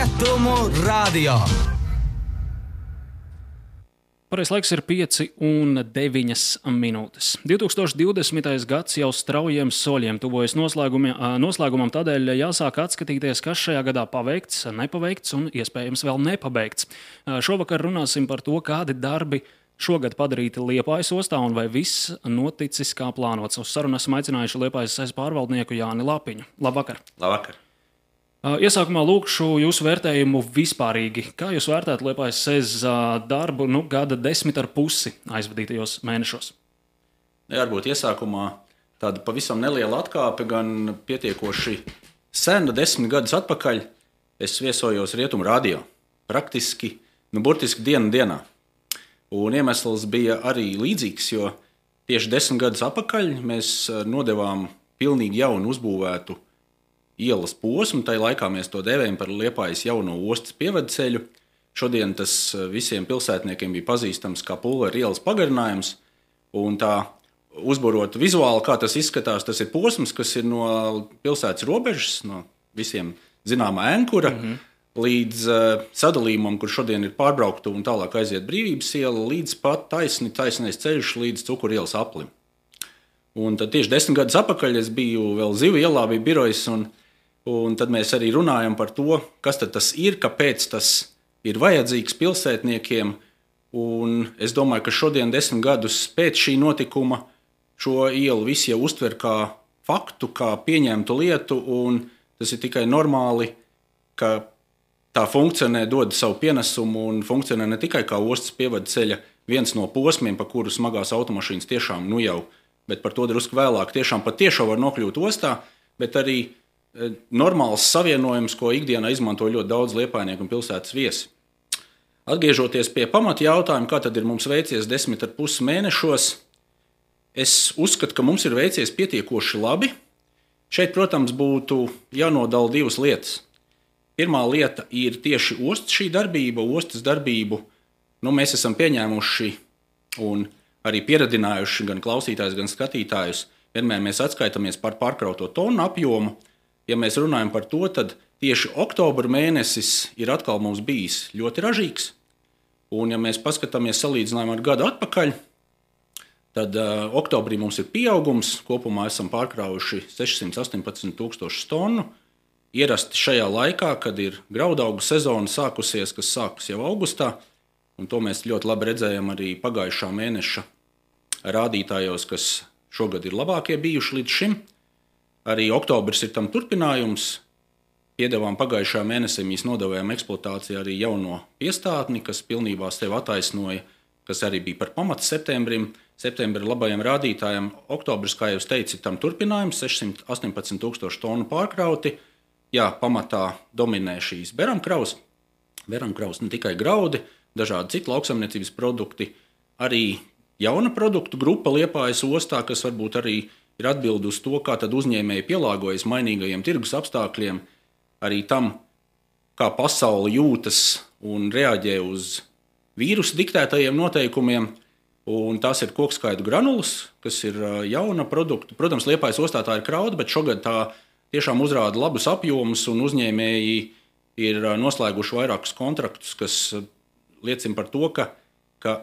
Rietumu radio. Pareizais laiks ir 5:09. 2020. gads jau straujiem soļiem tuvojas noslēgumam, tādēļ jāsāk atskatīties, kas šajā gadā paveikts, nepaveikts un iespējams vēl nepabeigts. Šovakar runāsim par to, kādi darbi šogad padarīti Liepājas ostā un vai viss noticis kā plānots. Uz sarunu esam aicinājuši Liepājas SEZ pārvaldnieku Jāni Lapiņu. Labvakar! Labvakar! Iesākumā lūkšu jūsu vērtējumu vispārīgi. Kā jūs vērtētu Liepājas SEZ darbu gada 10,5 aizvadītajos mēnešos? Varbūt iesākumā tāda pavisam neliela atkāpe, gan pietiekoši sena, 10 gadus atpakaļ. Es viesojos Rietumu radio, praktiski, burtiski dienā. Un iemesls bija arī līdzīgs, jo tieši 10 gadus atpakaļ mēs nodevām pilnīgi jaunu uzbūvētu ielas posmu. Tai laikā mēs to dēvējam par Liepājas jauno ostas pievedceļu. Šodien tas visiem pilsētniekiem bija pazīstams kā Pulveru ielas pagarinājums. Un tā uzburot vizuāli, kā tas izskatās, tas ir posms, kas ir no pilsētas robežas, no visiem zināmā Ēnkura, līdz sadalījumam, kur šodien ir pārbraukta un tālāk aiziet Brīvības iela, līdz pat taisnais ceļš līdz Cukuru ielas aplim. Un tad tieši 10 gadus atpakaļ es biju vēl Zivu ielā, bija birojs, un tad mēs arī runājam par to, kas tad tas ir, kāpēc tas ir vajadzīgs pilsētniekiem. Un es domāju, ka šodien 10 gadus pēc šī notikuma šo ielu visi jau uztver kā faktu, kā pieņemtu lietu, un tas ir tikai normāli, ka tā funkcionē, dod savu pienesumu un funkcionē ne tikai kā ostas pievadceļa viens no posmiem, pa kuru smagās automašīnas tiešām jau, bet par to drusku vēlāk tiešām var nokļūt ostā, bet arī normāls savienojums, ko ikdienā izmanto ļoti daudz liepājnieku un pilsētas viesi. Atgriežoties pie pamata jautājuma, kā tad ir mums veicies 10,5 mēnešos, es uzskatu, ka mums ir veicies pietiekoši labi. Šeit, protams, būtu jānodala divas lietas. Pirmā lieta ir tieši ostas šī darbība, ostas darbību. Mēs esam pieņēmuši un arī pieradinājuši gan klausītājus, gan skatītājus. Vienmēr mēs atskaitamies par pārkrauto tonu apjomu. Ja mēs runājam par to, tad tieši oktobra mēnesis ir atkal mums bijis ļoti ražīgs. Un ja mēs paskatāmies salīdzinājumu ar gadu atpakaļ, tad oktobrī mums ir pieaugums. Kopumā esam pārkraujuši 618,000 tonu. Ierasti šajā laikā, kad ir graudaugu sezona sākusies, kas sākas jau augustā, un to mēs ļoti labi redzējām arī pagājušā mēneša rādītājos, kas šogad ir labākie bijuši līdz šim. Arī oktobris ir tam turpinājums. Piedevām pagājušā mēnesī mēs nodevējām eksploatācijā arī jauno piestātni, kas pilnībā sevi attaisnoja, kas arī bija par pamatu septembrim. Septembra labajiem rādītājiem oktobris, kā jau teicu, ir tam turpinājums, 618,000 tonu pārkrauti. Jā, pamatā dominē šīs beramkraus. Beramkraus ne tikai graudi, dažādi citi lauksaimniecības produkti, arī jauna produktu grupa Liepājas ostā, kas varbūt arī ir atbildi uz to, kā tad uzņēmēji pielāgojas mainīgajiem tirgus apstākļiem, arī tam, kā pasaule jūtas un reaģē uz vīrusu diktētajiem noteikumiem. Un tās ir kokskaidu granulas, kas ir jauna produkta. Protams, Liepājas ostā tā ir krauda, bet šogad tā tiešām uzrāda labus apjomus, un uzņēmēji ir noslēguši vairākus kontraktus, kas liecina par to, ka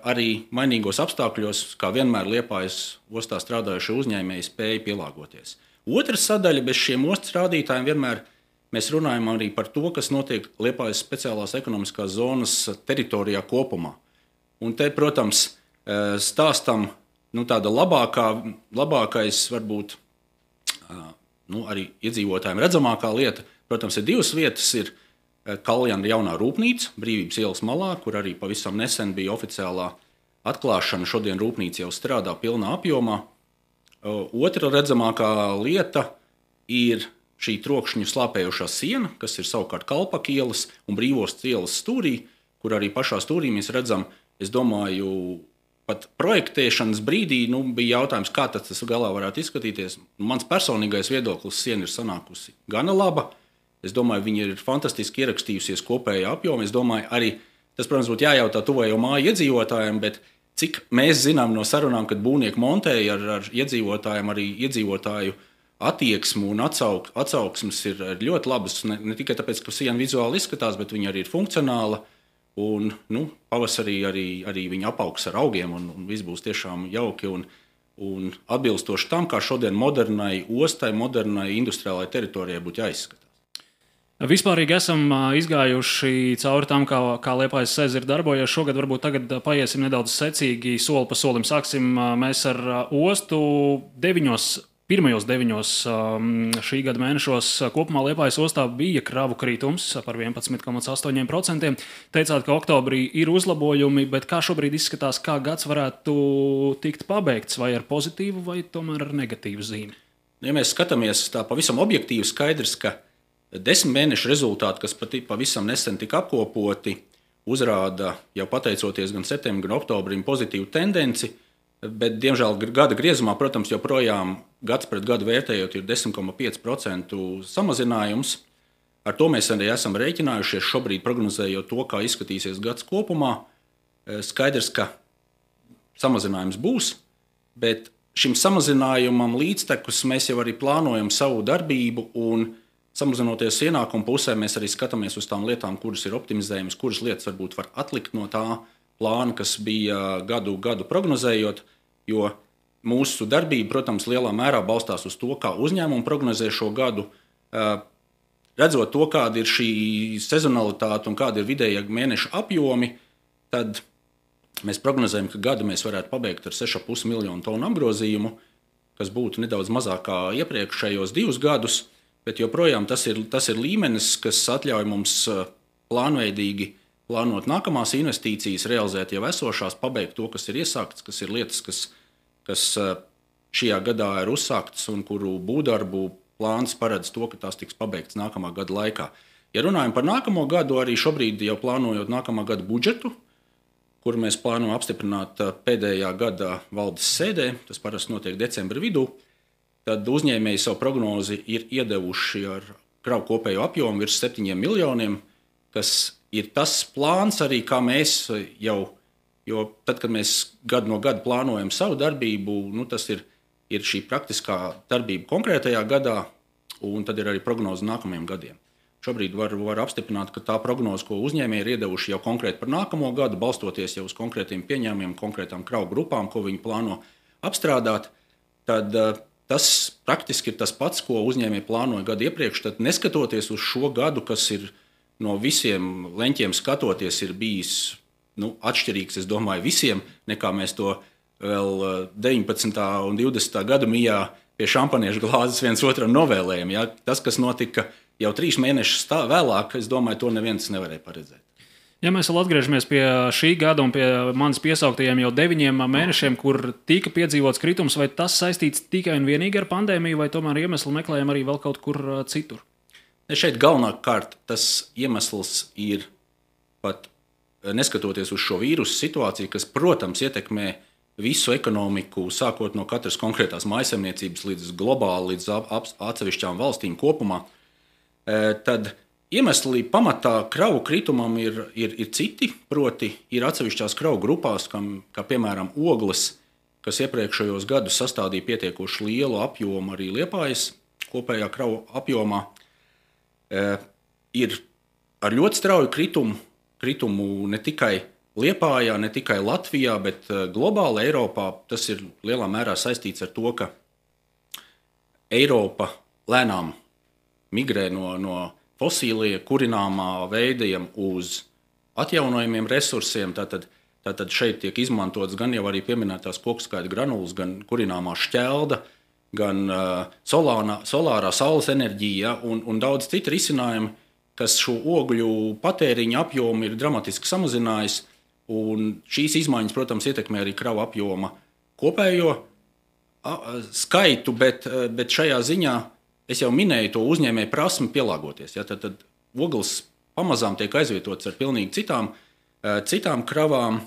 arī mainīgos apstākļos, kā vienmēr Liepājas ostā strādājušie uzņēmēji spēja pielāgoties. Otra sadaļa bez šiem ostas rādītājiem vienmēr mēs runājam arī par to, kas notiek Liepājas speciālās ekonomiskās zonas teritorijā kopumā. Un te, protams, stāstam tāda labākais varbūt arī iedzīvotājiem redzamākā lieta. Protams, ir divas vietas. Ir Kaljana jaunā rūpnīca, Brīvības ielas malā, kur arī pavisam nesen bija oficiālā atklāšana. Šodien rūpnīca jau strādā pilnā apjomā. Otra redzamākā lieta ir šī trokšņu slāpējošā siena, kas ir savukārt Kalpaka ielas un Brīvostas ielas stūrī, kur arī pašā stūrī mēs redzam, es domāju, pat projektēšanas brīdī bija jautājums, kā tas galā varētu izskatīties. Mans personīgais viedoklis, siena ir sanākusi gana laba. Es domāju, viņi ir fantastiski ierakstījusies kopējā apjomā. Es domāju, arī tas, protams, būtu jājautā tuvējo māju iedzīvotājiem, bet cik mēs zinām no sarunām, kad būvnieki montēja ar iedzīvotājiem, arī iedzīvotāju attieksme un atsauksmes ir ļoti labas. Ne tikai tāpēc, ka siena vizuāli izskatās, bet viņa arī ir funkcionāla. Un, pavasarī arī viņa apaugs ar augiem, un viss būs tiešām jauki un atbilstoši tam, kā šodien modernai ostai, modernai industriālai teritorijai būtu jāizskatās. Vispārīgi esam izgājuši cauri tam, kā Liepājas ezera darbojas. Šogad varbūt tagad paiesim nedaudz secīgi, soli pa solim. Sāksim mēs ar ostu pirmajos 9 šī gada mēnešos. Kopumā Liepājas ostā bija kravu kritums par 11,8%. Teicāt, ka oktobrī ir uzlabojumi, bet kā šobrīd izskatās, kā gads varētu tikt pabeigts, vai ar pozitīvu, vai tomēr ar negatīvu zīmi? Ja mēs skatāmies tā pavisam objektīvi, skaidrs, ka 10 mēnešu rezultāti, kas pavisam nesen tika apkopoti, uzrāda jau pateicoties gan septembrim, gan oktobrim pozitīvu tendenci, bet, diemžēl, gada griezumā, protams, joprojām gads pret gadu vērtējot ir 10,5% samazinājums. Ar to mēs arī esam rēķinājušies šobrīd, prognozējot to, kā izskatīsies gads kopumā. Skaidrs, ka samazinājums būs, bet šim samazinājumam līdztekus mēs jau arī plānojam savu darbību un samazinoties ienākumu pusē, mēs arī skatāmies uz tām lietām, kuras ir optimizējamas, kuras lietas varbūt var atlikt no tā plāna, kas bija gadu prognozējot, jo mūsu darbība, protams, lielā mērā balstās uz to, kā uzņēmumi prognozē šo gadu. Redzot to, kāda ir šī sezonalitāte un kāda ir vidējā mēneša apjomi, tad mēs prognozējam, ka gadu mēs varētu pabeigt ar 6,5 miljonu tonu apgrozījumu, kas būtu nedaudz mazāk kā iepriekšējos 2 gadus. Bet joprojām tas ir līmenis, kas atļauj mums plānveidīgi plānot nākamās investīcijas, realizēt jau esošās, pabeigt to, kas ir iesākts, kas ir lietas, kas šajā gadā ir uzsāktas un kuru būvdarbu plāns paredz to, ka tās tiks pabeigtas nākamā gada laikā. Ja runājam par nākamo gadu, arī šobrīd jau plānojot nākamā gada budžetu, kuru mēs plānojam apstiprināt pēdējā gada valdes sēdē, tas parasti notiek decembra vidū, tad uzņēmēji savu prognozi ir iedevuši ar kravu kopējo apjomu virs 7 miljoniem, kas ir tas plāns arī, kā mēs jau, jo tad, kad mēs gadu no gada plānojam savu darbību, tas ir šī praktiskā darbība konkrētajā gadā, un tad ir arī prognoze nākamajiem gadiem. Šobrīd var apstiprināt, ka tā prognoze, ko uzņēmēji ir iedevuši jau konkrēti par nākamo gadu, balstoties jau uz konkrētiem pieņēmumiem, konkrētām kravu grupām, ko viņi plāno apstrādāt, tad tas praktiski ir tas pats, ko uzņēmēji plānoja gadu iepriekš. Tad, neskatoties uz šo gadu, kas ir no visiem leņķiem skatoties, ir bijis atšķirīgs, es domāju, visiem, nekā mēs to vēl 19. un 20. gadu mijā pie šampaniešu glāzes viens otram novēlējam. Ja? Tas, kas notika jau 3 mēnešus vēlāk, es domāju, to neviens nevarēja paredzēt. Ja mēs vēl atgriežamies pie šī gada un pie manis piesauktajiem jau 9 mēnešiem, kur tika piedzīvots kritums, vai tas saistīts tikai un vienīgi ar pandēmiju, vai tomēr iemeslu meklējam arī vēl kaut kur citur? Šeit galvenokārt tas iemesls ir pat neskatoties uz šo vīrusu situāciju, kas, protams, ietekmē visu ekonomiku, sākot no katras konkrētās mājsaimniecības līdz globāli, līdz atsevišķām valstīm kopumā, tad iemesli pamatā kravu kritumam ir citi, proti ir atsevišķās kravu grupās, kā piemēram ogles, kas iepriekšējos gadus sastādīja pietiekoši lielu apjomu arī Liepājas kopējā kravu apjomā, ir ar ļoti strauju kritumu ne tikai Liepājā, ne tikai Latvijā, bet globāli Eiropā. Tas ir lielā mērā saistīts ar to, ka Eiropa lēnām migrē no fosīlie kurināmā veidiem uz atjaunojumiem resursiem. Tātad šeit tiek izmantots gan jau arī pieminētās kokskaita granulas, gan kurināmā šķelda, gan solārā saules enerģija un daudz citu risinājumu, kas šo ogļu patēriņa apjomu ir dramatiski samazinājis. Un šīs izmaiņas, protams, ietekmē arī kravu apjoma kopējo skaitu, bet šajā ziņā es jau minēju to uzņēmēju prasmi pielāgoties. Ja, tad ogles pamazām tiek aizvietotas ar pilnīgi citām kravām,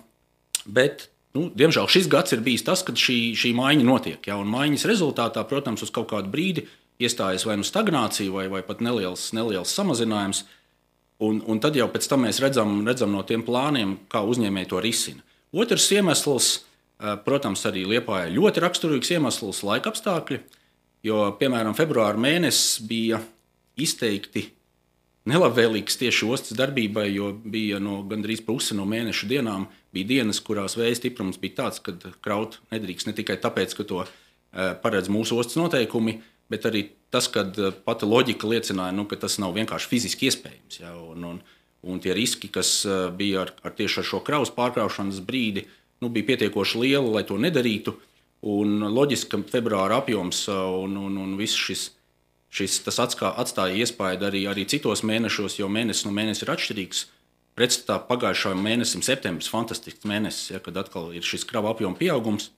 bet, diemžēl, šis gads ir bijis tas, kad šī maiņa notiek. Ja, un maiņas rezultātā, protams, uz kaut kādu brīdi iestājas vai stagnācija vai pat neliels samazinājums, un tad jau pēc tam mēs redzam no tiem plāniem, kā uzņēmēji to risina. Otrs iemesls, protams, arī Liepājai ļoti raksturīgs iemesls - laika apstākļi. jo, piemēram, februāra mēnesis bija izteikti nelabvēlīgs tieši ostas darbībai, jo bija gandrīz pusi no mēneša dienām. Bija dienas, kurās vēja stiprums bija tāds, ka kraut nedrīkst ne tikai tāpēc, ka to paredz mūsu ostas noteikumi, bet arī tas, ka pati loģika liecināja, ka tas nav vienkārši fiziski iespējams. Ja, un tie riski, kas bija tieši ar šo kravas pārkraušanas brīdi, bija pietiekoši lieli, lai to nedarītu. Un loģiski, ka februāra apjoms un viss tas atstāja iespaidu arī citos mēnešos, jo mēnesis no mēneša ir atšķirīgs. Pretstatā pagājušajam mēnesim, septembris, fantastisks mēnesis, ja, kad atkal ir šis krava apjoma pieaugums.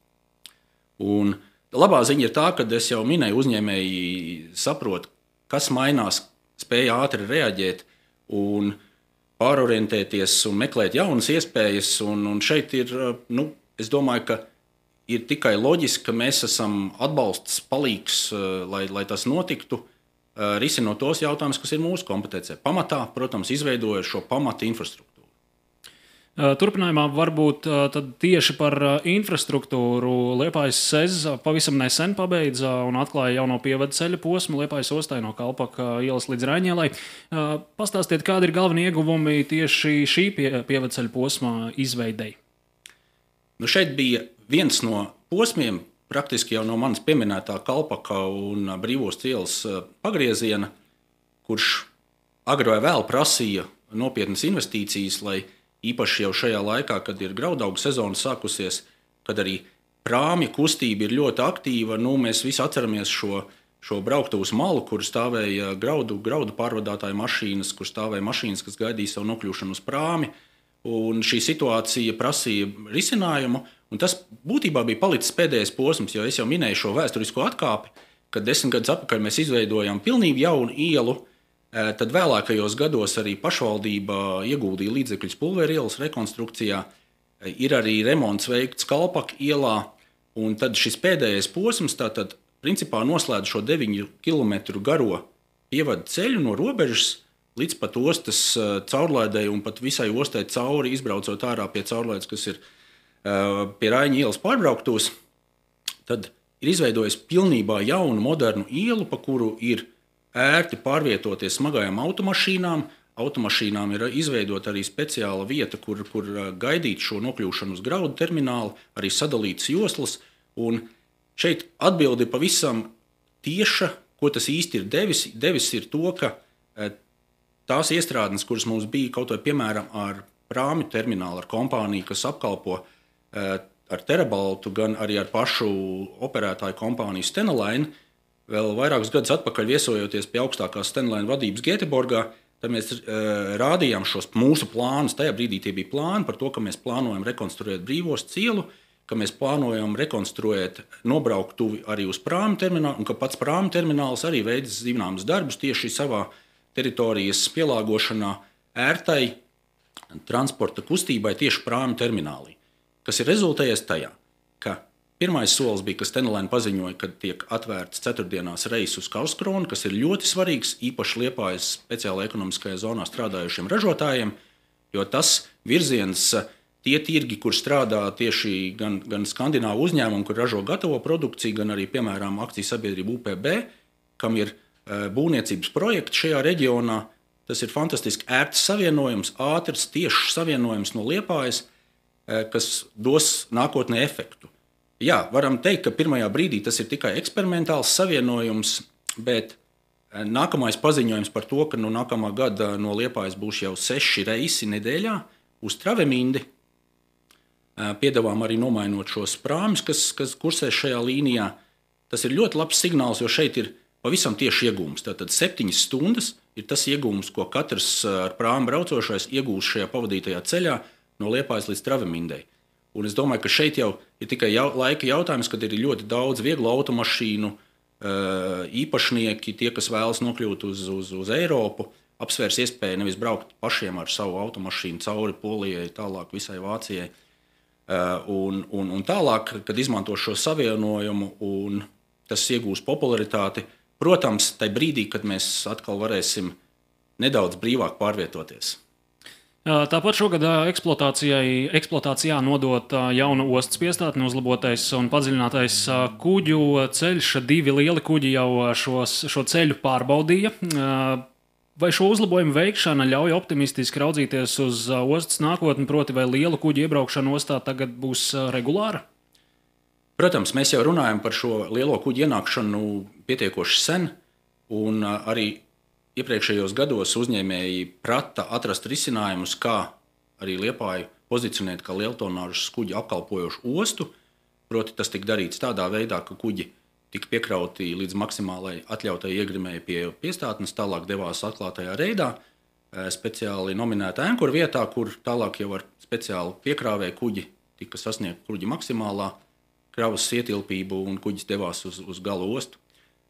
Un labā ziņa ir tā, ka es jau minēju, uzņēmēji saprot, kas mainās, spēja ātri reaģēt un pārorientēties un meklēt jaunas iespējas. Un šeit ir, es domāju, ka ir tikai loģiski, ka mēs esam atbalsts, palīgs, lai tas notiktu, risinot tos jautājumus, kas ir mūsu kompetencē. Pamatā, protams, izveidojot šo pamata infrastruktūru. Turpinājumā varbūt tad tieši par infrastruktūru. Liepājas SEZ pavisam nesen pabeidza un atklāja jauno pievadu ceļa posmu Liepājas ostai no Kalpaka ielas līdz Raņielai. Pastāstiet, kādi ir galvenie ieguvumi tieši šī pievadu ceļa posma izveidei? Šeit bija viens no posmiem, praktiski jau no manas pieminētā Kalpaka un Brīvostas ielas pagrieziena, kurš agri vai vēl prasīja nopietnas investīcijas, lai īpaši jau šajā laikā, kad ir graudaugu sezona sākusies, kad arī prāmja kustība ir ļoti aktīva, mēs visi atceramies šo brauktuvas malu, kur stāvēja graudu pārvadātāju mašīnas, kur stāvēja mašīnas, kas gaidīja savu nokļūšanu uz prāmi. Un šī situācija prasīja risinājumu, un tas būtībā bija palicis pēdējais posms, jo es jau minēju šo vēsturisko atkāpi, kad 10 gadus atpakaļ mēs izveidojām pilnīgi jaunu ielu, tad vēlākajos gados arī pašvaldība ieguldīja līdzekļus Pulveru ielas rekonstrukcijā, ir arī remonts veikts Kalpaka ielā, un tad šis pēdējais posms tātad principā noslēdz šo 9 km garo pievadu ceļu no robežas līdz pat ostas caurlaidei un pat visai ostai cauri, izbraucot ārā pie caurlaides, kas ir pie Raņa ielas pārbrauktuvas, tad ir izveidojis pilnībā jaunu, modernu ielu, pa kuru ir ērti pārvietoties smagajām automašīnām. Automašīnām ir izveidota arī speciāla vieta, kur gaidīt šo nokļūšanu uz graudu terminālu, arī sadalītas joslas. Un šeit atbildi pavisam tieša, ko tas īsti ir devis. Devis ir to, ka tās iestrādnes, kuras mums bija kaut vai piemēram ar prāmju terminālu, ar kompāniju, kas apkalpo ar Terabaltu, gan arī ar pašu operētāju kompāniju Stena Line, vēl vairākus gadus atpakaļ viesojoties pie augstākās Stena Line vadības Gēteborgā, tad mēs rādījām šos mūsu plānus. Tajā brīdī tie bija plāni par to, ka mēs plānojam rekonstruēt Brīvostas ielu, ka mēs plānojam rekonstruēt nobrauktuvi arī uz prāmju terminālu, un ka pats prāmju termināls arī veids zināmas darbus tieši savā teritorijas pielāgošanā ērtai transporta kustībai tieši prāmju terminālī, kas ir rezultējies tajā, ka pirmais solis bija, ka Stena Line paziņoja, ka tiek atvērts ceturtdienās reis uz Karlskronu, kas ir ļoti svarīgs, īpaši Liepājas speciālajā ekonomiskajā zonā strādājušiem ražotājiem, jo tas virziens, tie tirgi, kur strādā tieši gan skandināvu uzņēmumu, kur ražo gatavo produkciju, gan arī, piemēram, akciju sabiedrība UPB, kam ir būvniecības projekti šajā reģionā. Tas ir fantastiski ērts savienojums, ātrs, tiešs savienojums no Liepājas, kas dos nākotnē efektu. Jā, varam teikt, ka pirmajā brīdī tas ir tikai eksperimentāls savienojums, bet nākamais paziņojums par to, ka no nākamā gada no Liepājas būs jau 6 reisi nedēļā uz Travemindi. Piedāvām arī nomainot šos prāmjus, kas kursē šajā līnijā. Tas ir ļoti labs signāls, jo šeit ir pavisam tieši iegūms. Tātad 7 stundas ir tas iegūms, ko katrs ar prāmu braucošais iegūs šajā pavadītajā ceļā no Liepājas līdz Travemindei. Un es domāju, ka šeit jau ir tikai laika jautājums, kad ir ļoti daudz vieglu automašīnu īpašnieki, tie, kas vēlas nokļūt uz Eiropu, apsvērs iespēju nevis braukt pašiem ar savu automašīnu cauri Polijai, tālāk visai Vācijai. Un tālāk, kad izmanto šo savienojumu un tas iegūs popularitāti, protams, tajā brīdī, kad mēs atkal varēsim nedaudz brīvāk pārvietoties. Tāpat šogad eksploatācijā nodota jauna ostas piestātne, uzlabotais un padziļinātais kuģu ceļš. 2 lieli kuģi jau šo ceļu pārbaudīja. Vai šo uzlabojumu veikšana ļauj optimistiski raudzīties uz ostas nākotni, proti vai lielu kuģu iebraukšana ostā tagad būs regulāra? Protams, mēs jau runājam par šo lielo kuģu ienākšanu pietiekoši sen, un arī iepriekšējos gados uzņēmēji prata atrast risinājumus, kā arī Liepāju pozicionēt kā lieltonāžas kuģi apkalpojošu ostu. Proti, tas tika darīts tādā veidā, ka kuģi tika piekrauti līdz maksimālai atļautai iegrimēji pie piestātnes, tālāk devās atklātajā reidā, speciāli nominēta ankura vietā, kur tālāk jau ar speciālu piekrāvēju kuģi tika sasniegta kuģi maksimālā kravas ietilpību un kuģis devās uz gala ostu.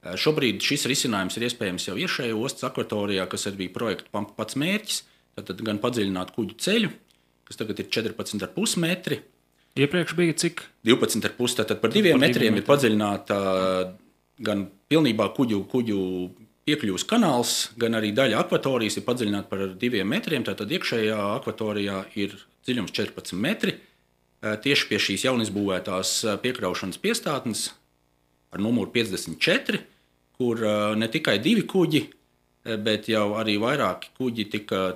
Šobrīd šis risinājums ir iespējams jau iekšējā ostas akvatorijā, kas arī bija projekta pats mērķis. Tad gan padziļināt kuģu ceļu, kas tagad ir 14,5 metri. Iepriekš bija cik? 12,5. Tātad par 2 metriem ir padziļināta gan pilnībā kuģu piekļuves kanāls, gan arī daļa akvatorijas ir padziļināta par 2 metriem. Tātad iekšējā akvatorijā ir dziļums 14 metri. Tieši pie šīs jaunizbūvētās piekraušanas piestātnes ar numuru 54, kur ne tikai 2 kuģi, bet jau arī vairāki kuģi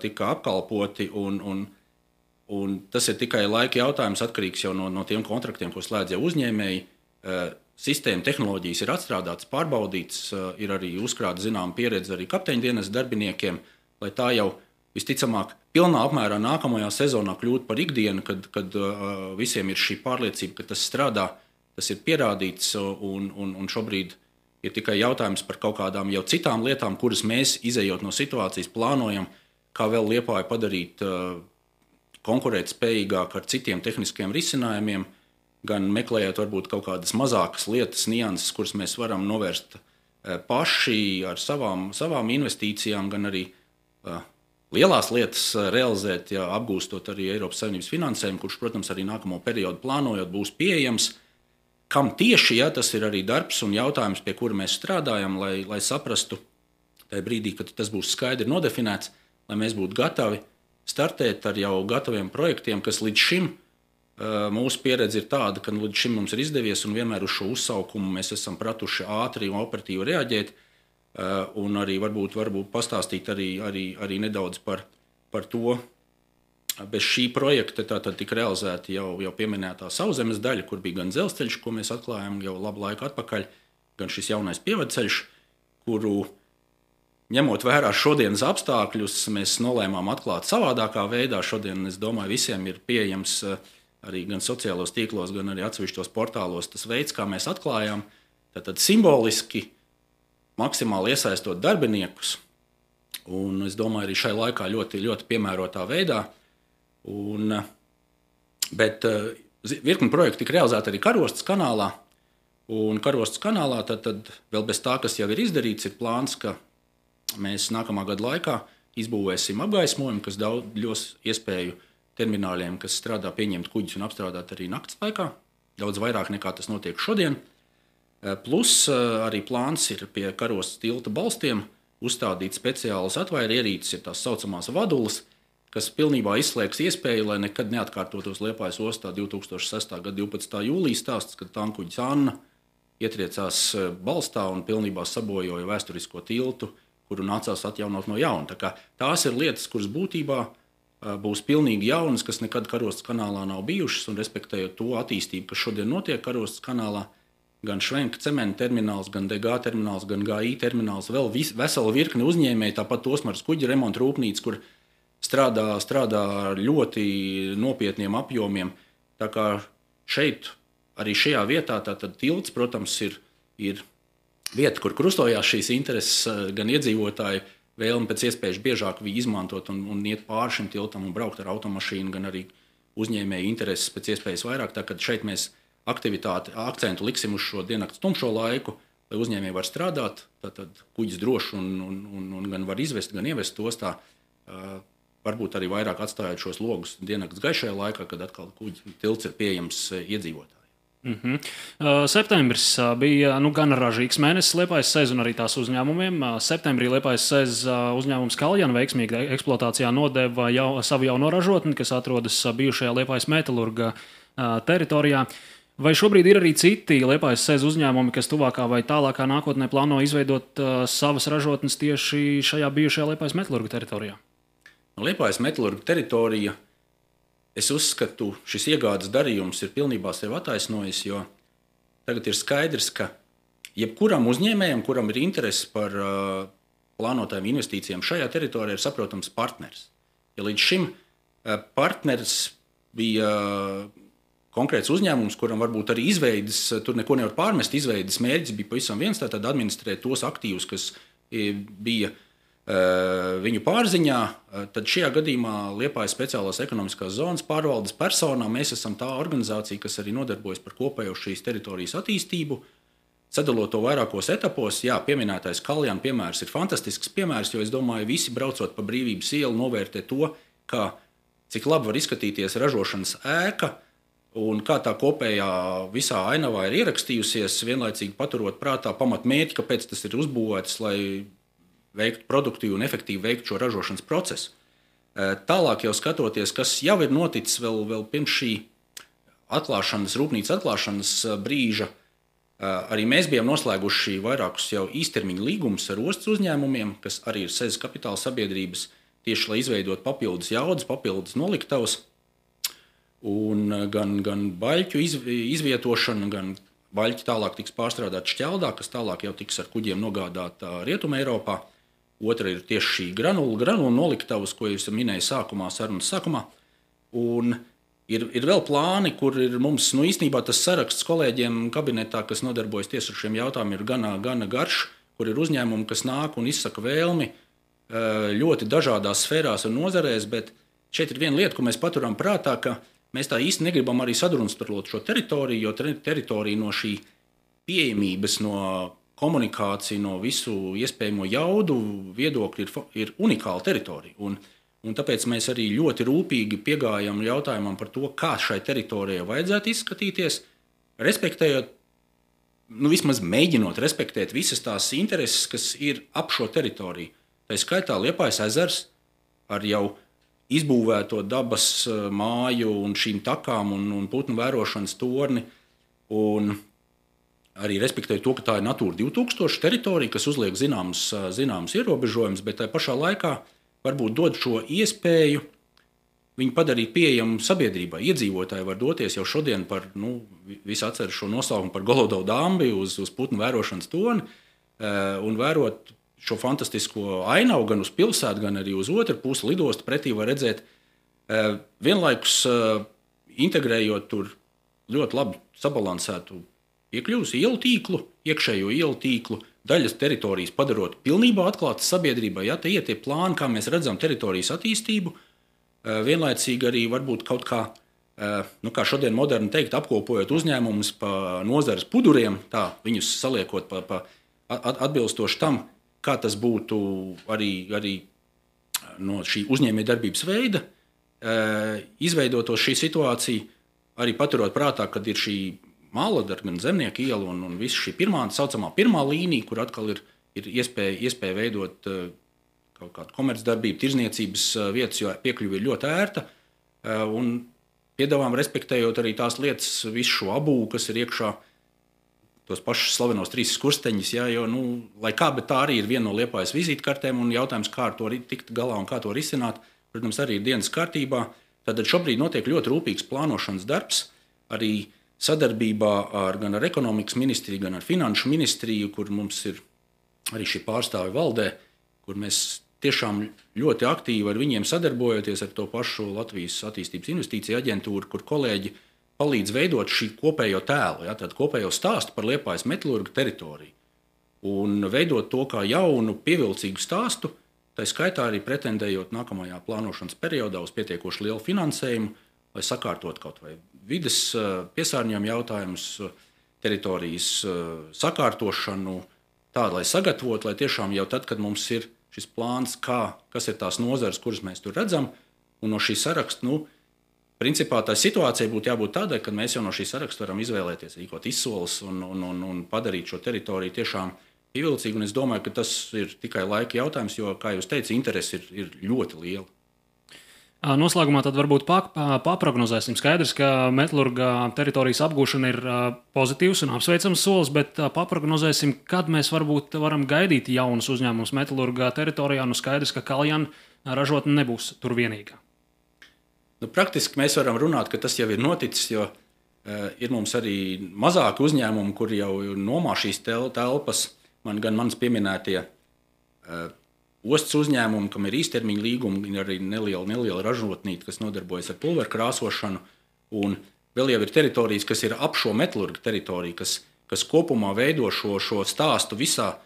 tika apkalpoti. Un tas ir tikai laika jautājums, atkarīgs jau no tiem kontraktiem, ko slēdz jau uzņēmēji. Sistēma tehnoloģijas ir atstrādātas, pārbaudītas, ir arī uzkrāta zināma pieredze arī kapteiņdienas darbiniekiem, lai tā jau visticamāk pilnā apmērā nākamajā sezonā kļūtu par ikdienu, kad visiem ir šī pārliecība, ka tas strādā, tas ir pierādīts, un šobrīd ir tikai jautājums par kaut kādām jau citām lietām, kuras mēs, izejot no situācijas, plānojam, kā vēl Liepāju padarīt konkurētspējīgāk ar citiem tehniskiem risinājumiem, gan meklējot varbūt kaut kādas mazākas lietas, nianses, kuras mēs varam novērst paši ar savām investīcijām, gan arī lielās lietas realizēt, ja apgūstot arī Eiropas Savienības finansējumu, kurš, protams, arī nākamo periodu plānojot būs pieejams. Kam tieši, ja tas ir arī darbs un jautājums, pie kura mēs strādājam, lai saprastu tajā brīdī, kad tas būs skaidri nodefinēts, lai mēs būtu gatavi startēt ar jau gataviem projektiem, kas līdz šim mūsu pieredze ir tāda, ka līdz šim mums ir izdevies un vienmēr uz šo uzsaukumu mēs esam pratuši ātri un operatīvi reaģēt, un arī varbūt pastāstīt arī nedaudz par to. Bez šī projekta tātad tika realizēta jau pieminētā sauszemes daļa, kur bija gan dzelzceļš, ko mēs atklājām jau labu laiku atpakaļ, gan šis jaunais pievadceļš, kuru, ņemot vērā šodienas apstākļus, mēs nolēmām atklāt savādākā veidā. Šodien, es domāju, visiem ir pieejams arī gan sociālos tīklos, gan arī atsevišķos portālos tas veids, kā mēs atklājām. Tātad simboliski, maksimāli iesaistot darbiniekus, un es domāju, arī šai laikā ļoti, ļoti piemērotā veidā. Bet virkni projekti tika realizēti arī Karostas kanālā. Un Karostas kanālā tad vēl bez tā, kas jau ir izdarīts, ir plāns, ka mēs nākamā gada laikā izbūvēsim apgaismojumu, kas dos iespēju termināļiem, kas strādā, pieņemt kuģus un apstrādāt arī nakts laikā. Daudz vairāk nekā tas notiek šodien. Plus arī plāns ir pie Karostas tilta balstiem uzstādīt speciālas atvairu ierīces, ir tās saucamās vadulas, kas pilnībā izslēgs iespēju, lai nekad neatkārtotos Liepājas ostā 2006. gada 12. jūlija stāsts, kad tankuģis Anna ietriecās balstā un pilnībā sabojoja vēsturisko tiltu, kuru nācās atjaunot no jauna. Tās ir lietas, kuras būtībā būs pilnīgi jaunas, kas nekad Karostas kanālā nav bijušas, un respektējot to attīstību, kas šodien notiek Karostas kanālā, gan Švenka cementa termināls, gan DG termināls, gan GI termināls, vēl vesela virkne uzņēmēji, tāpat Osmaras kuģa remonta rūpnīca, kur strādā ar ļoti nopietniem apjomiem. Tā kā šeit, arī šajā vietā, tātad tilts, protams, ir vieta, kur krustojās šīs intereses, gan iedzīvotāji vēlme pēc iespējas biežāk izmantot un iet pāri šim tiltam un braukt ar automašīnu, gan arī uzņēmēju intereses pēc iespējas vairāk. Tā kā šeit mēs akcentu liksim uz šo diennakts tumšo laiku, lai uzņēmēji var strādāt, tad kuģis droši un gan var izvest, gan ievest ostā. Varbūt arī vairāk atstājot šos logus diennakts gaišajā laikā, kad atkal kuģi tilts ir pieejams iedzīvotājiem. Septembris bija gan ražīgs mēnesis Liepājas SEZ un arī tās uzņēmumiem. Septembrī Liepājas SEZ uzņēmums Kaljana veiksmīgi eksploatācijā nodeva savu jauno ražotni, kas atrodas bijušajā Liepājas metalurga teritorijā. Vai šobrīd ir arī citi Liepājas SEZ uzņēmumi, kas tuvākā vai tālākā nākotnē plāno izveidot savas ražotnes tieši šajā bijušajā Liepājas metalurga teritorijā? Liepājas metalurga teritorija, es uzskatu, šis iegādes darījums ir pilnībā sev attaisnojis, jo tagad ir skaidrs, ka jebkuram uzņēmējam, kuram ir interese par plānotajām investīcijām šajā teritorijā, ir saprotams partners. Ja līdz šim partners bija konkrēts uzņēmums, kuram varbūt arī izveides, tur neko nevar pārmest, izveides mērķis bija pavisam viens, tātad administrēt tos aktīvus, kas bija viņu pārziņā, tad šajā gadījumā Liepājas speciālās ekonomiskās zonas pārvaldes personā mēs esam tā organizācija, kas arī nodarbojas par kopējo šīs teritorijas attīstību, sadalot to vairākos etapos. Jā, pieminētais Kaljana piemērs ir fantastisks piemērs, jo es domāju, visi braucot pa Brīvības ielu novērtē to, cik labi var izskatīties ražošanas ēka un kā tā kopējā visā ainavā ir ierakstījusies, vienlaicīgi paturot prātā pamatmērķi, kāpēc tas ir uzbūvēts, lai veiktu produktīvi un efektīvi veikt šo ražošanas procesu. Tālāk jau skatoties, kas jau ir noticis vēl pirms šī rūpnīcas atklāšanas brīža, arī mēs bijām noslēguši vairākus jau īstermiņa līgumus ar ostas uzņēmumiem, kas arī ir SEZ kapitāla sabiedrības, tieši lai izveidot papildus jaudas, papildus noliktavas, un gan baļķu izvietošana, gan baļķi tālāk tiks pārstrādāt Šķeldā, kas tālāk jau tiks ar kuģiem nogādāta Rietumē Eiropā. Otra ir tieši šī granula noliktavas, ko jūs minējāt sarunas sākumā. Un ir vēl plāni, kur ir mums īstenībā tas saraksts kolēģiem kabinetā, kas nodarbojas tieši ar šiem jautājumiem, ir gana garš, kur ir uzņēmumi, kas nāk un izsaka vēlmi ļoti dažādās sfērās un nozarēs, bet šeit ir viena lieta, ko mēs paturam prātā, ka mēs tā īsti negribam arī sadrumstalot šo teritoriju, jo teritorija no šī pieejamības, no komunikācija, no visu iespējamo jaudu viedokļu ir unikāla teritorija. Un tāpēc mēs arī ļoti rūpīgi piegājam jautājumam par to, kā šai teritorijai vajadzētu izskatīties, respektējot, vismaz mēģinot respektēt visas tās intereses, kas ir ap šo teritoriju. Tā skaitā Liepājas ezers ar jau izbūvēto dabas māju un šīm takām un putnu vērošanas torni, un arī respektēju to, ka tā ir Natūra 2000 teritorija, kas uzliek zināmus ierobežojumus, bet tajā pašā laikā varbūt dod šo iespēju viņu padarīt pieejamu sabiedrībai. Iedzīvotāji var doties jau šodien visi atceras šo nosaukumu par Golodovu dambi uz putnu vērošanas torni un vērot šo fantastisko ainavu gan uz pilsētu, gan arī uz otru pusi lidostu pretī var redzēt, vienlaikus integrējot tur ļoti labi sabalansētu iekļūs ielu tīklu, iekšējo ielu tīklu, daļas teritorijas padarot pilnībā atklātas sabiedrībai. Ja, te ir tie plāni, kā mēs redzam teritorijas attīstību, vienlaicīgi arī varbūt kaut kā, kā šodien moderni teikt, apkopojot uzņēmumus pa nozares puduriem, tā viņus saliekot atbilstoši tam, kā tas būtu arī no šī uzņēmējdarbības veida, izveidotos šī situācija, arī paturot prātā, kad ir šī Māladara, gan Zemnieku iela un visa šī saucamā pirmā līnija, kur atkal ir iespēja veidot kaut kādu komercdarbību, tirzniecības vietas, jo piekļuve ir ļoti ērta. Un piedāvājam, respektējot arī tās lietas, visu šo abūvu, kas ir iekšā, tos pašus slavenos 3 skursteņus, ja, jo, lai kā, bet tā arī ir viena no Liepājas vizītkartēm, un jautājums, kā ar to tikt galā un kā to risināt, protams, arī ir dienas kārtībā. Tad šobrīd notiek ļoti rūpīgs plānošanas darbs, arī sadarbībā gan ar ekonomikas ministriju, gan ar finanšu ministriju, kur mums ir arī šī pārstāvi valdē, kur mēs tiešām ļoti aktīvi ar viņiem sadarbojoties ar to pašu Latvijas attīstības investīciju aģentūru, kur kolēģi palīdz veidot šī kopējo tēlu, ja, tādu kopējo stāstu par Liepājas metalurga teritoriju. Un veidot to kā jaunu, pievilcīgu stāstu, tā skaitā arī pretendējot nākamajā plānošanas periodā uz pietiekoši lielu finansējumu, lai sakārtot kaut vai vides piesārņojumu jautājumus, teritorijas sakārtošanu, tādu, lai sagatavotu, lai tiešām jau tad, kad mums ir šis plāns, kas ir tās nozares, kuras mēs tur redzam, un no šī saraksta, principā tā situācija būtu jābūt tādai, ka mēs jau no šī saraksta varam izvēlēties, rīkot izsoles un padarīt šo teritoriju tiešām pievilcīgu. Un es domāju, ka tas ir tikai laika jautājums, jo, kā jūs teicat, interese ir ļoti liela. Noslēgumā tad varbūt paprognozēsim. Skaidrs, ka metalurga teritorijas apgūšana ir pozitīvs un apsveicams solis, bet paprognozēsim, kad mēs varbūt varam gaidīt jaunus uzņēmumus metalurga teritorijā. Nu, skaidrs, ka Kaljana ražotne nebūs tur vienīgā. Nu, praktiski mēs varam runāt, ka tas jau ir noticis, jo ir mums arī mazāki uzņēmumi, kur jau nomā šīs telpas, gan manas pieminētie ostas uzņēmumi, kam ir īstermiņa līgumi, ir arī neliela ražotnīte, kas nodarbojas ar pulveru krāsošanu. Un vēl jau ir teritorijas, kas ir ap šo metalurga teritoriju, kas kopumā veido šo stāstu visā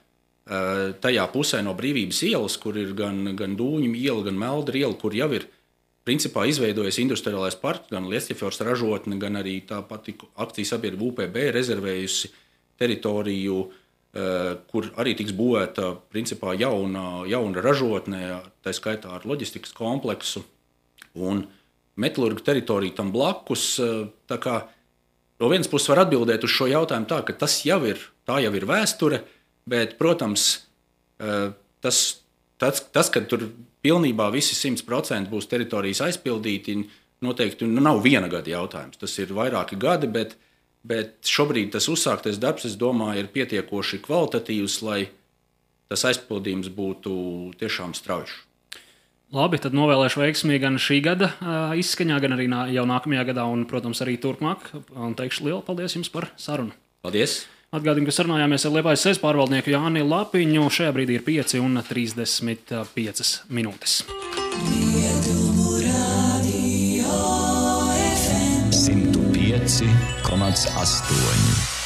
tajā pusē no Brīvības ielas, kur ir gan Dūņu iela, gan Meldra iela, kur jau ir principā izveidojies industriālais parks, gan Liesķefjords ražotne, gan arī tā pati akciju sabiedrība UPB rezervējusi teritoriju, kur arī tiks būvēta principā jauna ražotne, tā skaitā ar loģistikas kompleksu un metalurga teritoriju tam blakus. Tā kā no vienas puses var atbildēt uz šo jautājumu tā, ka tā jau ir vēsture, bet, protams, tas kad tur pilnībā visi 100% būs teritorijas aizpildīti, noteikti nav viena gada jautājums. Tas ir vairāki gadi, bet šobrīd tas uzsāktais darbs, es domāju, ir pietiekoši kvalitatīvs, lai tas aizpildījums būtu tiešām strauji. Labi, tad novēlēšu veiksmīgi gan šī gada izskaņā, gan arī jau nākamajā gadā un, protams, arī turpmāk. Un teikšu lielu paldies jums par sarunu. Paldies! Atgādinu, ka sarunājāmies ar Liepājas SES pārvaldnieku Jāni Lapiņu. Šajā brīdī ir 5:35 minūtes. 105,8